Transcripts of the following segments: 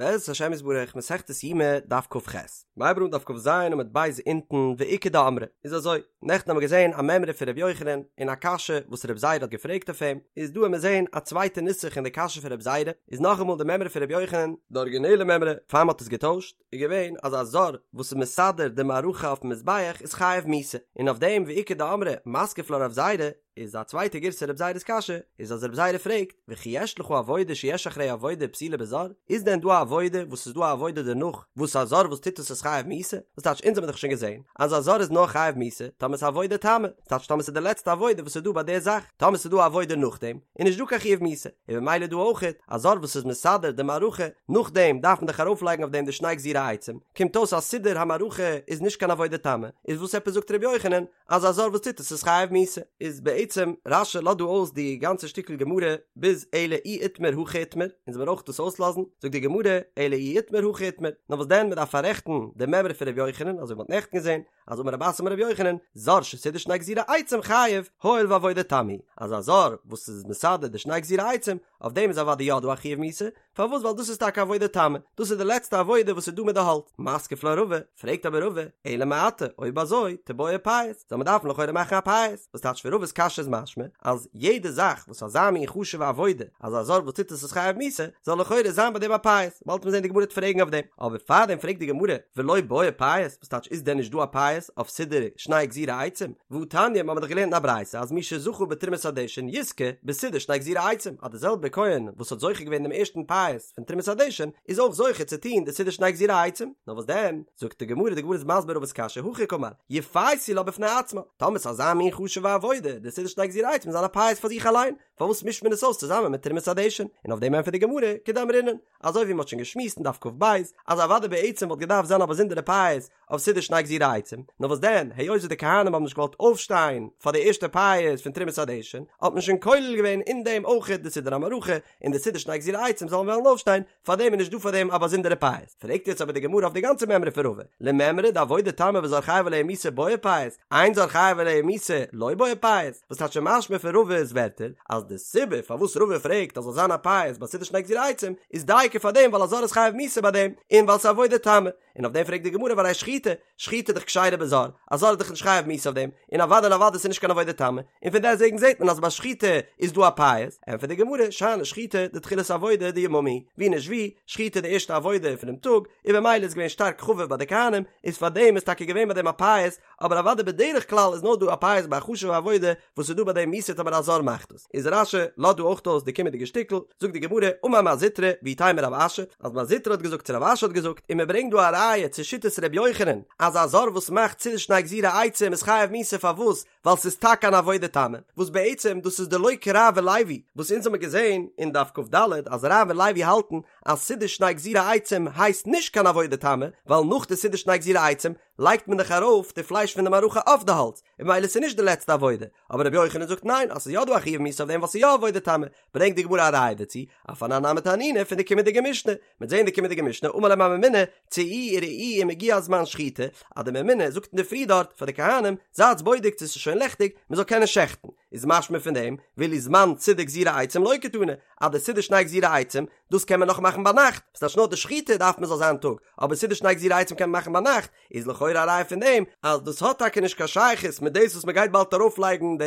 בעזרת השם יתברך מסכת יומא דף כ"ח. מ'הייבט אן דף כ"ז עמוד ב' אונטן ואיכא דאמרי איז אזוי, נעכטן האבן מיר געזען א מימרא פון ר' יוחנן און א קשיא וואס ר' זירא האט געפרעגט אויף אים, איז דא וועמיר זען א צווייטע נוסח אין די קשיא פון ר' זירא, איז נאכאמאל די מימרא פון ר' יוחנן, די ארגינעלע מימרא פאר מ'האט עס געטוישט, איז געווען אז א זר וואס איז מסדר די מערכה אויפן מזבח איז חייב מיתה, און אויף דעם ואיכא דאמרי מתקיף לה רב זירא, איז א צווייטע גירסא רב זירא'ס קשיא, איז אז רב זירא פרעגט, וכי יש לך עבודה שיש אחריה עבודה פסולה בזר, איז דען דא א עבודה וואס איז דא א עבודה דערנאך וואס א זר וואס טוט עס איז חייב מיתה? וואס טייטש אונז האבן דאך שוין געזען אז א זר איז נאר חייב מיתה טאמער ס'איז עבודה תמה, ס'טייטש טאמער ס'איז די לעצטע עבודה וואס איז דא ביי די זאך, טאמער ס'איז דא א עבודה נאכדעם איז נישט דא קיין חיוב מיתה, און במילא דא אויכעט, א זר וואס איז מסדר די מערכה נאכדעם דארף מען דאך ארויפלייגן אויף דעם די שני גזירי עצים, קומט אויס אז סידור המערכה איז נישט קיין עבודה תמה, איז וואס עפעס זאגט ר' יוחנן אז א זר וואס טוט עס איז חייב מיתה? איז בעצם רש"י לאזט דא אויס די גאנצע שטיקל גמרא ביז אלא אי איתמר הכי איתמר, אונז וועלן אויך דאס אויסלאזן, זאגט די גמרא אלא אי איתמר הכי איתמר, נאר וואס דען מען דארף פאררעכטן די מימרא פון ר' יוחנן אזוי ווי מען האט נעכטן געזען, אז אמר רב אסי אמר רבי יוחנן, זר שסידר שני גזירי עצים חייב, הואיל ועבודה תמה היא, אז א זר וואס איז מסדר די שני גזירי עצים, אויף דעם איז אוודאי יא דא א חיוב מיתה, פארוואס ווייל דאס איז טאקע עבודה תמה, דאס איז די לעצטע עבודה וואס איז דא מיט די האלץ, מתקיף לה רבא, פרעגט אבער רבא, אלא מעתה, אויב אזוי, תיבעי פייס, זאל מען דארפן לכאורה מאכן א פייס, וואס טייטש פון רבא'ס קשיא איז משמע, אז יעדע זאך וואס אזא מין חשוב'ע עבודה, אז א זר וואס טוט עס איז חייב מיתה, זאל לכאורה זיין ביי דעם א פייס, באלד וועט מען זען די גמרא וועט פרעגן אויף דעם, אבער פארדעם פרעגט די גמרא, ולא בעי פייס, וואס טייטש איז דען נישט דא א פייס אויף סידור שני גזירי עצים? והא תניא, מ'האמיר דאך געלערנט אין א ברייתא אז מי שזכה בתרומת הדשן יזכה בסידור שני גזירי עצים, אז די זעלבע כהן וואס האט זוכה געווען דעם ערשטן פייס פון תרומת הדשן איז אויך זוכה צו טון די סידור שני גזירי עצים, נאר וואס דען? זאגט די גמרא, די גמרא איז מסביר רבא'ס קשיא, הכי קאמר, יפייסו לה בפני עצמה, טאמער ס'איז אזא מין חשוב'ע עבודה, די סידור שני גזירי עצים זאל זיין א פייס פאר זיך אליין, פארוואס מישט מען עס אויס צוזאמען מיט תרומת הדשן? און אויף דעם ענטפערט די גמרא, כדאמרינן, אזוי ווי מ'האט שוין געשמועסט אין דף כ"ב, אז אוודאי בעצם וואלט געדארפט זיין א באזונדערע פייס אויף סידור שני גזירי עצים, נאר וואס דען, היות וואס די כהנים האבן נישט געוואלט אויפשטיין פאר די ערשטע פייס פון תרומת הדשן, האט מען שוין כולל געווען אין דעם אויכעט די סידור המערכה, און די סידור שני גזירי עצים זאלן וועלן אויפשטיין, פאר דעם איז נישט דא פאר דעם א באזונדערע פייס. פרעגט יעצט אבער די גמרא אויף די גאנצע מימרא פון רבא, למימרא דעבודה תמה וזר חייב עליה מיתה בעי פייס, אין זר חייב עליה מיתה לא בעי פייס, וואס טייטש משמע פון רבא'ס ווערטער אז די סיבה פארוואס רבא פרעגט אז זאל זיין א פייס ביי סידור שני גזירי עצים איז דייקא פאר דעם ווייל א זר איז חייב מיתה ביי דעם און ווייל ס'איז עבודה תמה, און אויף דעם פרעגט די גמרא והרי שחיטה, שחיטה איז דאך כשרה בזר, א זר איז דאך נישט חייב מיתה אויף דעם, און אוודאי און אוודאי ס'איז נישט קיין עבודה תמה, און פון דעסטוועגן זעט מען אז ביי שחיטה איז דא א פייס, ענטפערט די גמרא, שאני שחיטה דתחילת עבודה דיממא היא, ווי נישט ווי, שחיטה איז די ערשטע עבודה פונעם טאג, און במילא איז געווען שטארק חביב ביי די כהנים, איז פאר דעם איז טאקע געווען ביי דעם א פייס, אבער אוודאי בדרך כלל איז נאר דא א פייס ביי א חשוב'ע עבודה וואס איז דא ביי דעם מיתה טאמער א זר מאכט עס. איז רש"י לאזט דא אויך אויס די קומענדיגע שטיקל, זאגט די גמרא, אמר מר זוטרא, ואיתימא רב אשי, אז מר זוטרא האט געזאגט צו רב אשי האט געזאגט, און מען ברענגט דא א ראיה צו שיטת ר' יוחנן, אז א זר וואס מאכט סידור שני גזירי עצים איז חייב מיתה פארוואס? ווייל ס'איז טאקע אן עבודה תמה, וואס בעצם דאס איז דלא כרב ולוי, וואס אונז האמיר געזען אין דף כ"ד אז רב און לוי האלטן אז סידור שני גזירי עצים הייסט נישט קיין עבודה תמה, ווייל נאך די סידור שני גזירי עצים לייגט מען דאך ארויף די פלייש פון די מערכה אויף די האלץ, און ממילא ס'איז נישט די לעצטע עבודה, אבער רבי יוחנן זאגט ניין אז ס'איז יא דא א חיוב מיתה אויף דעם ווייל ס'איז יא עבודה תמה, ברענגט די גמרא א ראיה דערצו, אף אנן נמי תנינא פון די קומענדיגע משנה, מ'וועט זען די קומענדיגע משנה, אמר להם הממונה, צאו וראו אם הגיע זמן שחיטה, אז די ממונה זאגט אינדערפרי דארט פאר די כהנים, זייטס בודק צו ס'איז שוין לעכטיג, מ'זאל קענען שעכטן, איז משמע פון דעם, ואילו זמן סידור גזירי עצים לא קתני, אז די סידור שני גזירי עצים, דאס קען מען נאך מאכן ביינאכט, ס'טייטש נאר די שחיטה דארף מען זאל זיין טאג, אבער סידור שני גזירי עצים קען מען מאכן ביינאכט, איז לכאורה א ראיה פון דעם אז דאס האט טאקע נישט קיין שייכות מיט דאס וואס מען גייט באלד ארויפלייגן די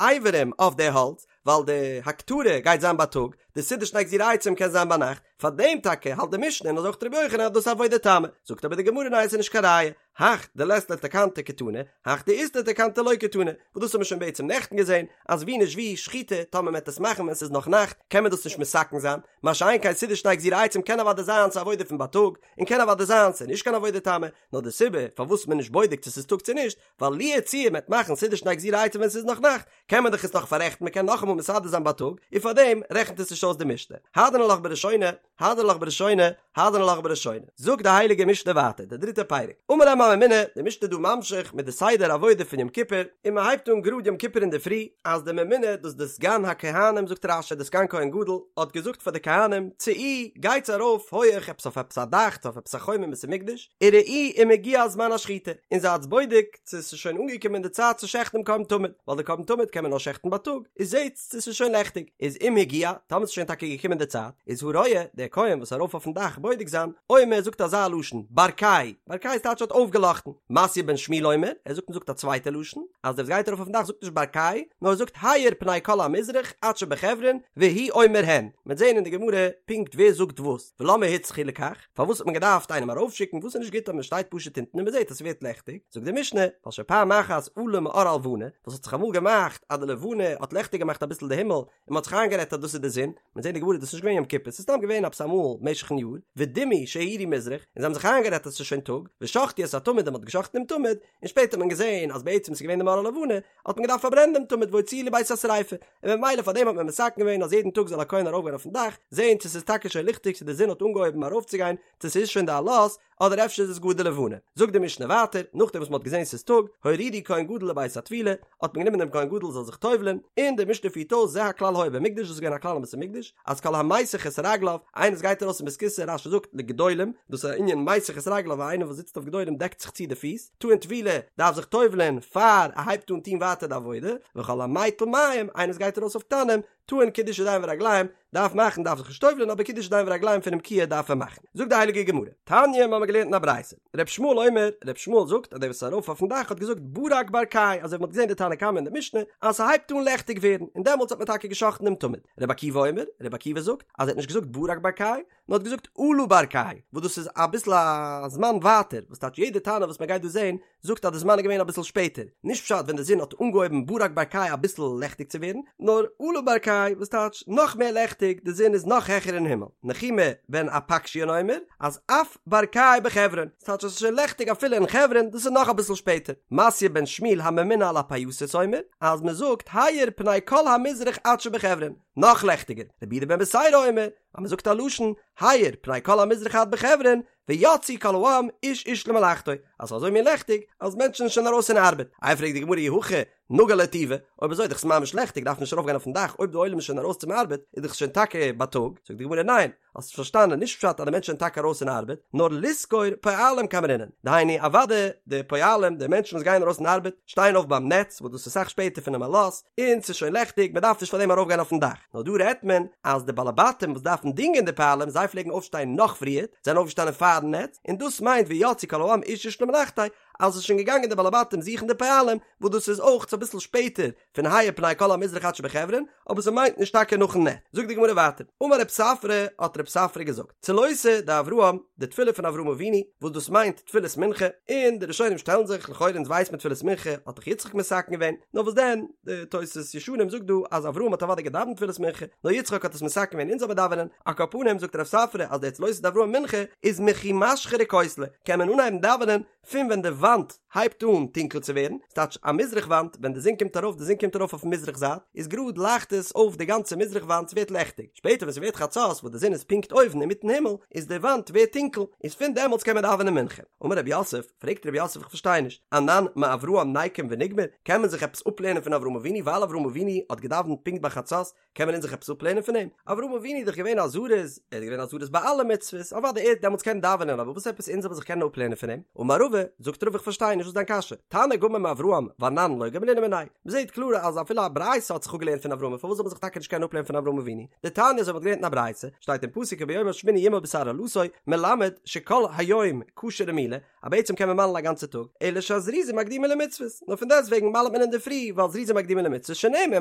אברים אויף די האלץ, ווייל די הקטרה גייט זיין בייטאג, די סידור שני גזירי עצים קען זיין ביינאכט, פארדעם טאקע האלט די משנה און אזוי אויך רבי יוחנן אז דאס איז עבודה תמה, זאגט אבער די גמרא ניין עס איז נישט קיין ראיה, הך דלית ליה תקנתא קתני, הך דאית ליה תקנתא לא קתני, וואס דאס האט מען שוין בעצם נעכטן געזען, אז ווי נישט ווי, שחיטה, טאמער מען וועט עס מאכן ווען ס'איז נאך נאכט, קען מען דאס נישט מתקן זיין, מה שאין כן סידור שני גזירי עצים קען אוודאי זיין ס'איז עבודה פון בייטאג, און קען אוודאי זיין ס'איז נישט קיין עבודה תמה, נאר די סיבה פארוואס מען איז נישט בודק צו ס'איז טאג צו נישט, ווייל לו יצוייר מ'וועט מאכן סידור שני גזירי עצים ווען ס'איז נאך נאכט, קען מען דאך עס נאך פאררעכטן מען קען נאכאמאל מסדר זיין בייטאג, און פארדעם רעכנט עס נישט אויס די משנה. הדרן עלך בראשונה, הדרן עלך בראשונה, הדרן עלך בראשונה. זאגט די הייליגע משנה ווייטער, די דריטע פרק, אמר להם הממונה, די משנה איז דא ממשיך מיט די סדר עבודה פון יום כיפור, און מען הייבט אן גראד יום כיפור אינדערפרי, אז די ממונה, דאס די סגן הכהנים זאגט רש"י די סגן כהן גדול, האט געזאגט פאר די כהנים, צאו, גייטס ארויף הויעך עפעס אויף עפעס א דאך, צו אויף עפעס א חומה אין בית המקדש, וראו אם הגיע זמן השחיטה, און זייטס בודק צו ס'איז שוין אנגעקומען די צייט צו שעכטן דעם קרבן תמיד, ווייל די קרבן תמיד קען מען נאר שעכטן בייטאג, איז זעטס צו ס'איז שוין לעכטיג, איז אם הגיע, טאמער ס'איז. איז שוין טאקע געקומען די צייט, איז הרואה, דער כהן וואס איז ארויף אויפן דאך בודק זיין, אומר זאגט אזא לשון, ברקיי, ברקיי איז טייטש האט אויפגעלאכטן, מתיא בן שמואל אומר, ער זאגט מ'זאגט א צווייטע לשון, אז דער וואס גייט ארויף אויפן דאך זאגט נישט ברקיי, נאר ער זאגט האיר פני כל המזרח עד שבחברון, והוא אומר הן, מ'וועט זען אין די גמרא פונקט ווער זאגט וואס, ולמה הוצרכו לכך, פארוואס האט מען געדארפט איינעם ארויפשיקן, וואס איז נישט גוט אז מ'שטייט פשוט אונטן און מ'זעט אז ס'ווערט לעכטיג, זאגט די משנה, ווייל שפעם אחת עלה מאור הלבנה, וואס האט זיך אמאל געמאכט אז די לבנה האט לעכטיג געמאכט אביסל די הימל, און מ'האט זיך איינגערעדט אז דאס איז די זון, מ'וועט זען אין די גמרא דאס איז נישט געווען יום כיפור, ס'איז סתם געווען עפעס אמאל משך'ן יאר, ודימו שהאירו מזרח, און זיי האבן זיך איינגערעדט אז ס'איז שוין טאג, ושחטו את התמיד און מ'האט געשחט'ן דעם תמיד, און שפעטער האט מען געזען אז בעצם ס'איז געווען די מאור הלבנה, האט מען געדארפט פארברענען דעם תמיד והוציאוהו לבית השריפה, און ממילא פאר דעם האט מען מתקן געווען אז יעדן טאג זאל א כהן ארויפגיין אויפן דאך, זען צו ס'איז טאקע שוין ליכטיג צו די זון האט אנגעהויבן ארויפצוגיין, צו ס'איז שוין די עלות, אדער אפשר איז עס גאר די לבנה. זאגט די משנה ווייטער, נאכדעם וואס מ'האט געזען ס'איז טאג, הורידו כהן גדול לבית הטבילה, האט מען גענומען דעם כהן גדול זאל זיך טובל'ען, און די משנה פירט אויס זה הכלל היה במקדש, דאס איז געווען א כלל אין בית המקדש, אז כל המיסך את רגליו, איינער וואס גייט ארויס אין בית הכסא, רש"י זאגט לגדולים, דאס איז א ענין מיסך את רגליו, איינער וואס זיצט אויף גדולים דעקט זיך צו די פיס, טעון טבילה, דארף זיך טובל'ען פאר ער הייבט אן טון ווייטער די עבודה, וכל המטיל מים, איינער וואס גייט ארויס אויף קטנים, טעון קידוש ידיים ורגליים, דארף מאכן דארף זיך נישט טובל'ען אבער קידוש ידיים ורגליים פונעם כיור דארף ער מאכן. זאגט די הייליגע גמרא, תניא מ'האמיר געלערנט אין א ברייתא, ר' ישמעאל אומר, ר' ישמעאל זאגט אז דער וואס איז ארויף אויפן דאך האט געזאגט ברק ברקיי אזוי ווי מ'האט געזען די תנא קמא אין די משנה אז ס'הייבט אן לעכטיג ווערן און דעמאלטס האט מען טאקע גע'שחט'ן דעם תמיד. ר' עקיבא אומר, ר' עקיבא זאגט אז ער האט נישט געזאגט ברק ברקיי, נאר האט געזאגט עלה ברקיי, וואס דאס איז אביסל א זמן ווייטער, וואס טייטש יעדע תנא וואס מען גייט דא זען זאגט אז די זמן איז געווען אביסל שפעטער, נישט פשט ווען די זון האט אנגעהויבן ברק ברקיי אביסל לעכטיג צו ווערן, נאר עלה ברקיי וואס טייטש נאך מער לעכטיג, די זון איז נאך העכער אין הימל. נחומי בן אפקשיון אומר אז אף ברקיי בחברון, ס'טייטש אז עס איז שוין לעכטיג אפילו אין חברון, דאס איז נאך אביסל שפעטער. מתיא בן שמואל הממונה על הפייסות אומר אז מען זאגט האיר פני כל המזרח עד שבחברון, נאך לעכטיגער. רבי יהודה בן בתירא אומר אז מען זאגט א לשון, האיר פני כל המזרח עד בחברון, ויצאו כל העם איש איש למלאכתו, אז ס'איז אזוי מין לעכטיג, אז מענטשן זענען שוין ארויס אין ארבעט. איי פרעגט די גמרא אי הכי נגה להו טובא, אויב אזוי איז דאך עס ממש לעכטיג דארף מען נישט ארויפגיין אויפן דאך, אויב די עולם איז שוין ארויס צום ארבעט איז דאך שוין טאקע בייטאג, זאגט די גמרא ניין, האסט פארשטאנען, נישט פשט אז די מענטשן זענען טאקע ארויס אין ארבעט, נאר לשכור פועלים קאמרינן, דהיינו אוודאי די פועלים, די מענטשן וואס גייען ארויס אין ארבעט, שטייען אויף ביים נץ, וואס דאס איז אסאך שפעטער פונעם עלות, און ס'איז שוין לעכטיג, מען דארף נישט פאר דעם ארויפגיין אויפן דאך. נאר דא רעדט מען אז די בעלי בתים וואס דארפן דינגען די פועלים, זיי פלעגן אויפשטיין נאך פריער, זענען אויפגעשטאנען פארן נץ, און דאס מיינט ויצאו כל העם איש איש למלאכתו, אז ס'איז שוין געגאנגען די בעלי בתים זוכן די פועלים, וואס דאס איז אויך אביסל שפעטער פון האיר פני כל המזרח עד שבחברון, אבער ס'מיינט נישט טאקע נאכן נץ. זאגט די גמרא ווייטער, אמר רב ספרא, האט רב ספרא געזאגט, צלותא דאברהם, די תפילה פון אברהם אבינו, וואס דאס מיינט תפילת מנחה, און די ראשונים שטעלן זיך, לכאורה אונז ווייסט מען תפילת מנחה האט דאך יצחק מתקן געווען, נאר וואס דען, די תוס' ישנים זאגט דא אז אברהם האט אוודאי געדאווענט תפילת מנחה, נאר יצחק האט עס מתקן געווען אונז זאל מען דאווענען, על כל פנים זאגט רב ספרא אז די צלותא דאברהם מנחה איז מכי משחרי כותלי, קען מען אנהייבן דאווענען פון ווען די וואנט הייבט אן טונקל צו ווערן, ס'טייטש א מזרח וואנט, ווען די זון קומט ארויף, די זון קומט ארויף אויפן מזרח זייט, איז גראד לייכט עס אויף די גאנצע מזרח וואנט, ס'ווערט לעכטיג, שפעטער ווען ס'ווערט חצות וואס די זון איז פונקט אויבן אינמיטן הימל, איז די וואנט ווערט טונקל, איז פון דעמאלטס קען מען דאווענען מנחה. אמר רב יוסף, פרעגט רב יוסף איך פארשטיי נישט, אנן מאברהם ניקום ונגמר, קען מען זיך עפעס אפלערנען פון אברהם אבינו ווייל אברהם אבינו האט געדאווענט פונקט ביי חצות, קען מען אונז זיך עפעס אפלערנען פון אים? אברהם אבינו איז דאך געווען א זריז, ער איז געווען א זריז ביי אלע מצוות, אוודאי ער האט דעמאלטס געקענט דאווענען, אבער וואס עפעס אונז זאל מען זיך קענען אפלערנען פון אים? אמר רבא, זאגט רבא איך פארשטיי נישט וואס איז דיין קשיא, תנא גמר מאברהם ואנן לא גמרינן מיניה, מען זעט קלאר אז אפילו א ברייתא האט זיך אפגעלערנט פון אברהם, פארוואס זאל מען זיך טאקע נישט קענען אפלערנען פון אברהם אבינו? דתניא אזוי ווי מען האט געלערנט אין א ברייתא, שטייט אין פסוק וביום השמיני ימול בשר ערלתו, מלמד שכל היום כשר למילה, אז בעצם קען מען מל'ן א גאנצע טאג, אלא שהזריזין מקדימין למצוות, נאר פון דעסט וועגן מל'ט מען אינדערפרי, ווייל זריזין מקדימין למצוות שנאמר,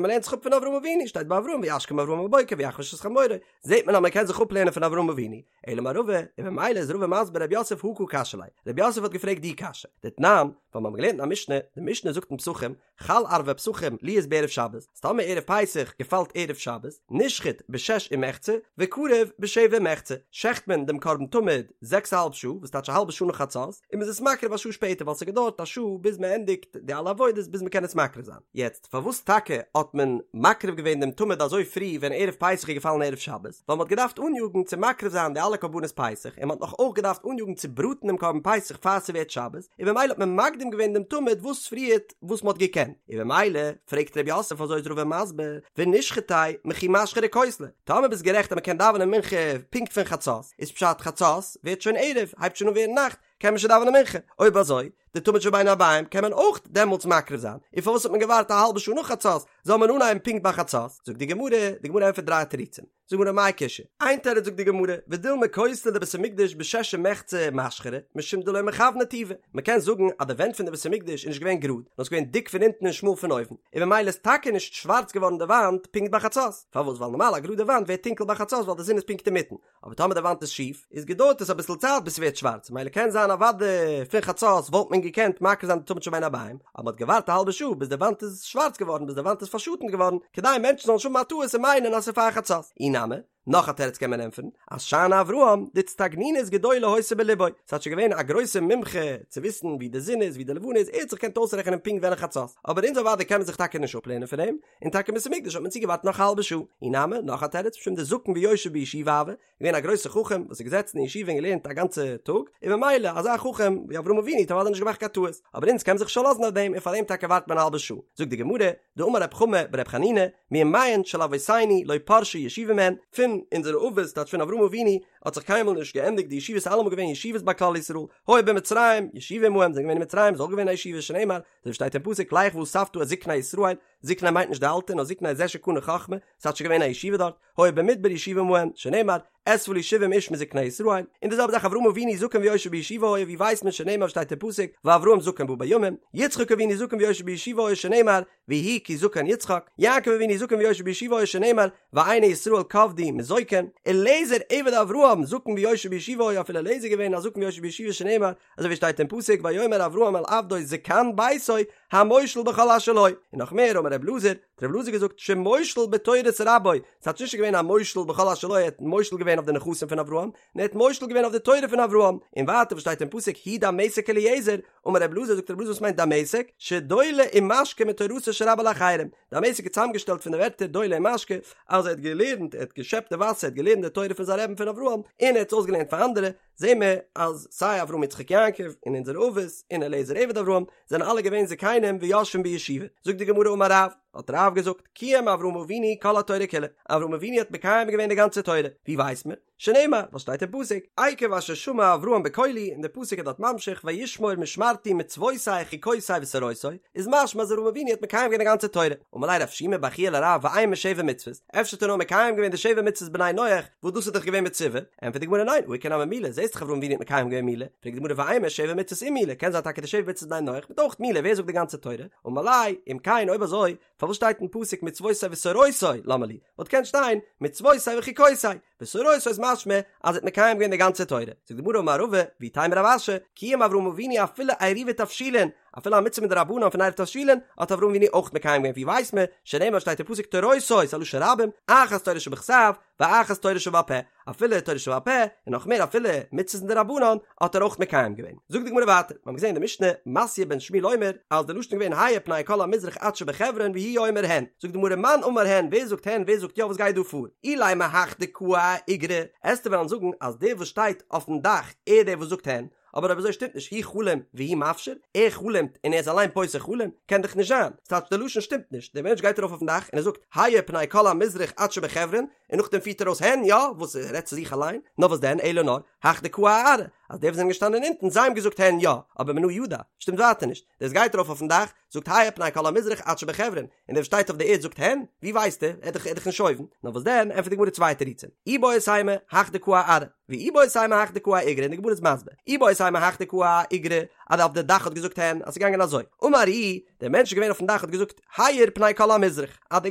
מען לערנט זיך אפ פון אברהם אבינו, שטייט ביי אברהם וישכם אברהם בבוקר ויחבוש את חמורו, זעט מען אז מען קען זיך אפלערנען פון אברהם אבינו, אלא אמר רבא, און ממילא איז רבא מסביר רב יוסף הא קא קשיא ליה, רב יוסף האט געפרעגט די קשיא, דתנן, ווייל מיר האבן געלערנט אין א משנה, די משנה זאגט אין פסחים, חל ערבי פסחים להיות בערב שבת, אז טאמער ערב פסח געפאלט ערב שבת, נשחט בשש ומחצה, וקרב בשבע ומחצה, שעכט מען דעם קרבן תמיד זעקס א האלב שעה, וואס טייטש א האלבע שעה נאך חצות, און מ'איז עס מקריב א שעה שפעטער ווייל ס'געדויערט א שעה ביז מ'ענדיגט די אלע עבודות ביז מ'קען עס מקריב זיין. יעצט, פארוואס טאקע האט מען מקריב געווען דעם תמיד אזוי פרי ווען ערב פסח איז געפאלן ערב שבת? ווייל מ'האט געדארפט אניאגן צו מקריב זיין די אלע קרבנות פסח, און מ'האט נאך אויך געדארפט אניאגן צו בראטן דעם קרבן פסח פאר ס'ווערט שבת, און במילא האט מען מקדים געווען דעם תמיד וואס פריערט וואס מ'האט געקענט, און במילא פרעגט ר' יוסף אזוי איז רבא מסביר, ונשחטיה מכי משחרי כותלי, טאמער ביסט גערעכט אז מ'קען דאווענען מנחה פונקט פון חצות, איז פשט חצות ווערט שוין ערב, הייבט שוין אן ווערן נאכט, קען מען שוין דאווענען מנחה, אויב אזוי, די תמיד של בין הערביים קען מען אויך דעמאלטס מקריב זיין, און פארוואס האט מען געווארט א האלבע שעה נאך חצות, זאל מען אנהייבן פונקט ביי חצות? זאגט די גמרא, די גמרא ענטפערט דריי תירוצים, זאגט די גמרא מאי קושיא, איין תירוץ זאגט די גמרא, ודילמא כותלי דבית המקדש בשש ומחצה משחרי, משום דלא מכווני טובא, מען קען זאגן אז די ווענט פון די בית המקדש איז נישט געווען גראד, נאר ס'איז געווען דיק פון אונטן און שמאל פון אויבן, און ממילא איז טאקע נישט שווארץ געווארן די וואנט פונקט ביי חצות, פארוואס? ווייל נארמאל א גראדע וואנט ווערט טונקל ביי חצות ווייל די זון איז פונקט אינמיטן, אבער טאמער די וואנט איז שיף, איז געדויערט עס אביסל צייט ביז ס'ווערט שווארץ, ממילא קען זיין אוודאי פון חצות וואלט מען געקענט מקריב זיין די תמיד של בין הערביים, אבער מ'האט געווארט א האלבע שעה ביז די וואנט איז שווארץ געווארן ביז די וואנט איז פארשאטנט געווארן, כדי מענטשן זאלן נישט האבן א טעות און מיינען אז ס'איז פאר חצות. אי נמי, נאך א תירוץ קען מען ענטפערן, אז שאני אברהם, דאיצטגנינות גדולה היתה בלבו, ס'טייטש ער איז געווען א גרויסע מומחה צו וויסן ווי די זון איז ווי די לבנה איז, ער האט זיך געקענט אויסרעכענען פונקט ווען חצות, אבער אונז אוודאי קען מען זיך טאקע נישט אפלערנען פון אים, און טאקע אין בית המקדש האט מען צוגעווארט נאך א האלבע שעה. אי נמי, נאך א תירוץ, משום דזקן ויושב בישיבה הוה, געווען א גרויסע חכם וואס איז געזעצן אין ישיבה און געלערנט א גאנצע טאג, און ממילא אזא חכם ווי אברהם אבינו האט אוודאי נישט געמאכט קיין טעות, אבער אונז קען מען זיך נישט פארלאזן אויף דעם און פאר דעם טאקע ווארט מען א האלבע שעה. זאגט די גמרא, דאמר רב חמא ברב חנינא, מימיהן של אבותינו לא פרשה ישיבה מהן, פון אונזערע אבות, טייטש פון אברהם אבינו, האט זיך קיינמאל נישט געענדיגט די ישיבות, אלעמאל געווען ישיבות ביי כלל ישראל, היו במצרים, ישיבה עמהם, זענען געווען אין מצרים איז אויך געווען א ישיבה, שנאמר, אזוי ווי שטייט אין פסוק, לך ואספת את זקני ישראל, זקני מיינט נישט די אלטע נאר זקני זה שקנה חכמה, ס'טייטש געווען א ישיבה דארט, היו במדבר ישיבה עמהם, שנאמר, אספה לי שבעים איש מזקני ישראל, און די זעלבע זאך אברהם אבינו זקן ויושב בישיבה היה ווי ווייסט מען שנאמר שטייט אין פסוק ואברהם זקן בא בימים, יצחק אבינו זקן ויושב בישיבה היה שנאמר ויהי כי זקן יצחק, יעקב אבינו זקן ויושב בישיבה היה שנאמר ועיני ישראל כבדו מזוקן, אליעזר עבד אברהם זקן ויושב בישיבה היה אפילו אליעזר געווען א זקן ויושב בישיבה שנאמר אזוי ווי שטייט אין פסוק ויאמר אברהם אל עבדו זקן ביתו המושל בכל אשר לו, און נאך מער אמר רב אלעזר, האט רב אלעזר געזאגט שמושל בתורת רבו, ס'טייטש נישט געווען א מושל בכל אשר לו ער האט מושל געווען אויף די נכסים פון אברהם, נאר ער האט מושל געווען אויף די תורה פון אברהם, און ווייטער וואס שטייט אין פסוק הוא דמשק אליעזר, אמר רב אלעזר זאגט רב אלעזר וואס מיינט דמשק, שדולה ומשקה מתורתו של רבו לאחרים, דמשק איז צוזאמגעשטעלט פון די ווערטער דולה ומשקה, אז ער האט געלערנט, ער האט געשעפט די וואסער, ער האט געלערנט די תורה פון זיין רבי'ן פון אברהם, און ער האט עס אויסגעלערנט פאר אנדערע, זעהן מיר אז סיי אברהם יצחק יעקב און אונזערע אבות און אליעזר עבד אברהם זענען אלע געווען זקנים ויושבים בישיבה. זאגט די גמרא אמר רב, האט רב געזאגט, קיים אברהם אבינו כל התורה כולה, אברהם אבינו האט מקיים געווען די גאנצע תורה, ווי ווייסט מען? שנאמר, וואס שטייט אין פסוק, עקב אשר שמע אברהם בקולי, און דער פסוק איז דארט ממשיך וישמור משמרתי מצותי חוקותי ותורותי, איז משמע אז אברהם אבינו האט מקיים געווען די גאנצע תורה. אמר ליה רב שימי בר חייא לרב ואימא שבע מצוות, אפשר האט ער נאר מקיים געווען די שבע מצוות בני נח, וואס דאס איז דאך געווען מצווה, ענטפערט די גמרא ניין, הא איכא נמי מילה, זעסט דאך אברהם אבינו האט מקיים געווען מילה, פרעגט די גמרא ואימא שבע מצוות ומילה, קען זיין טאקע די שבע מצוות בני נח מיט אויך מילה, ווער זאגט די גאנצע תורה? אמר ליה, אם כן אויב אזוי, פארוואס שטייט אין פסוק מצותי ותורותי, למה לי? וואלט געקענט שטיין מצותי וחוקותי, ותורותי איז משמע אז ער האט מקיים געווען די גאנצע תורה, זאגט די גמרא אמר רבא, ואיתימא רב אשי, קיים אברהם אבינו אפילו עירובי תבשילין, אפילו א מצוה מדרבנן פון עירוב תבשילין האט אברהם אבינו אויך מקיים געווען, ווי ווייסט מען? שנאמר שטייט אין פסוק תורותי, ס'איז א לשון רבים, אחת תורה שבכתב, ואחת תורה שבעל פה, אפילו תורה שבעל פה, און נאך מער אפילו מצוות מדרבנן, האט ער אויך מקיים געווען. זאגט די גמרא ווייטער, מיר האבן געזען אין די משנה, מתיא בן שמואל אומר, אז די לשון איז געווען האיר פני כל המזרח עד שבחברון והוא אומר הן. זאגט די גמרא מאן אמר הן, ווער זאגט הן, ווער זאגט יא, וואס גייט דא פאר? אילימא הך דקאי אאיגרא, עסטו וועלן זאגן אז דער וואס שטייט אויפן דאך, ער דער וואס זאגט הן, אבער אויב אזוי שטימט נישט הוא חלים והוא מפשיר, ער חלומ'ט און ער איז אליין פותר חלום, קען דאך נישט זיין, ס'טייטש די לשון שטימט נישט, דער מענטש גייט ארויף אויפן דאך און ער זאגט האיר פני כל המזרח עד שבחברון, און נאכדעם פירט ער אויס הן יא, וואס ער רעדט צו זיך אליין, נאר וואס דען אלא נאר, הך דקאי אארעא, אז די וואס זענען געשטאנען אונטן זיי האבן געזאגט הן יא, אבער מנא ידע, שטימט ווייטער נישט, דער וואס גייט ארויף אויפן דאך, זאגט האיר פני כל המזרח עד שבחברון, און דער וואס שטייט אויף די ערד זאגט הן, ווי ווייסט ער, ער איז דאך נישט אויבן, נאר וואס דען, ענטפערט די גמרא צוויי תירוצים, איבעית אימא, הך דקאי אארעא, ואיבעית אימא הך דקאי אאיגרא, און די גמרא איז מסביר, איבעית אימא הך דקאי אאיגרא, אז אויף די דאך האט געזאגט הן, אז ס'איז געגאנגען אזוי, אמר איהו, דער מענטש איז געווען אויפן דאך האט געזאגט, האיר פני כל המזרח, אז די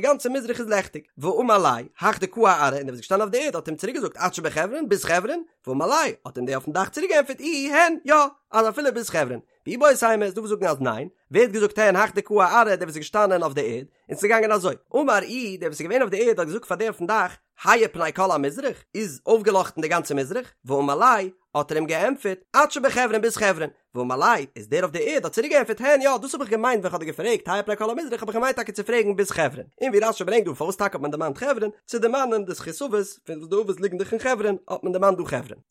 גאנצע מזרח איז לעכטיג, ואמר ליה, הך דקאי אארעא, און דער וואס איז געשטאנען אויף די ערד האט אים צוריק געזאגט עד שבחברון, ביז חברון, ואמר ליה, האט אים דער אויפן דאך צוריק געענטפערט איהו, הן, יא, אז אפילו ביז חברון. ואיבעית אימא איז דא וואס זאגן אז ניין, ווער האט געזאגט הן הך דקאי אארעא דער וואס איז געשטאנען אויף די ערד, און ס'איז געגאנגען אזוי, אמר איהו דער וואס איז געווען אויף די ערד האט געזאגט פאר דער אויפן דאך, האיר פני כל המזרח, איז אויפגעלאכטן די גאנצע מזרח, ואמר ליה, האט ער אים געענטפערט, עד שבחברון ביז חברון, ואמר ליה, איז דער אויף די ערד האט צוריק געענטפערט הן יא דאס האב איך געמיינט ווען כ'האב דיר געפרעגט האיר פני כל המזרח האב איך געמיינט טאקע צו פרעגן ביז חברון, און ווי רש"י ברענגט דא פארוואס טאקע האט מען דערמאנט חברון, צו דערמאנען די זכות אבות פון וואס די אבות ליגן דאך אין חברון האט מען דערמאנט דא חברון.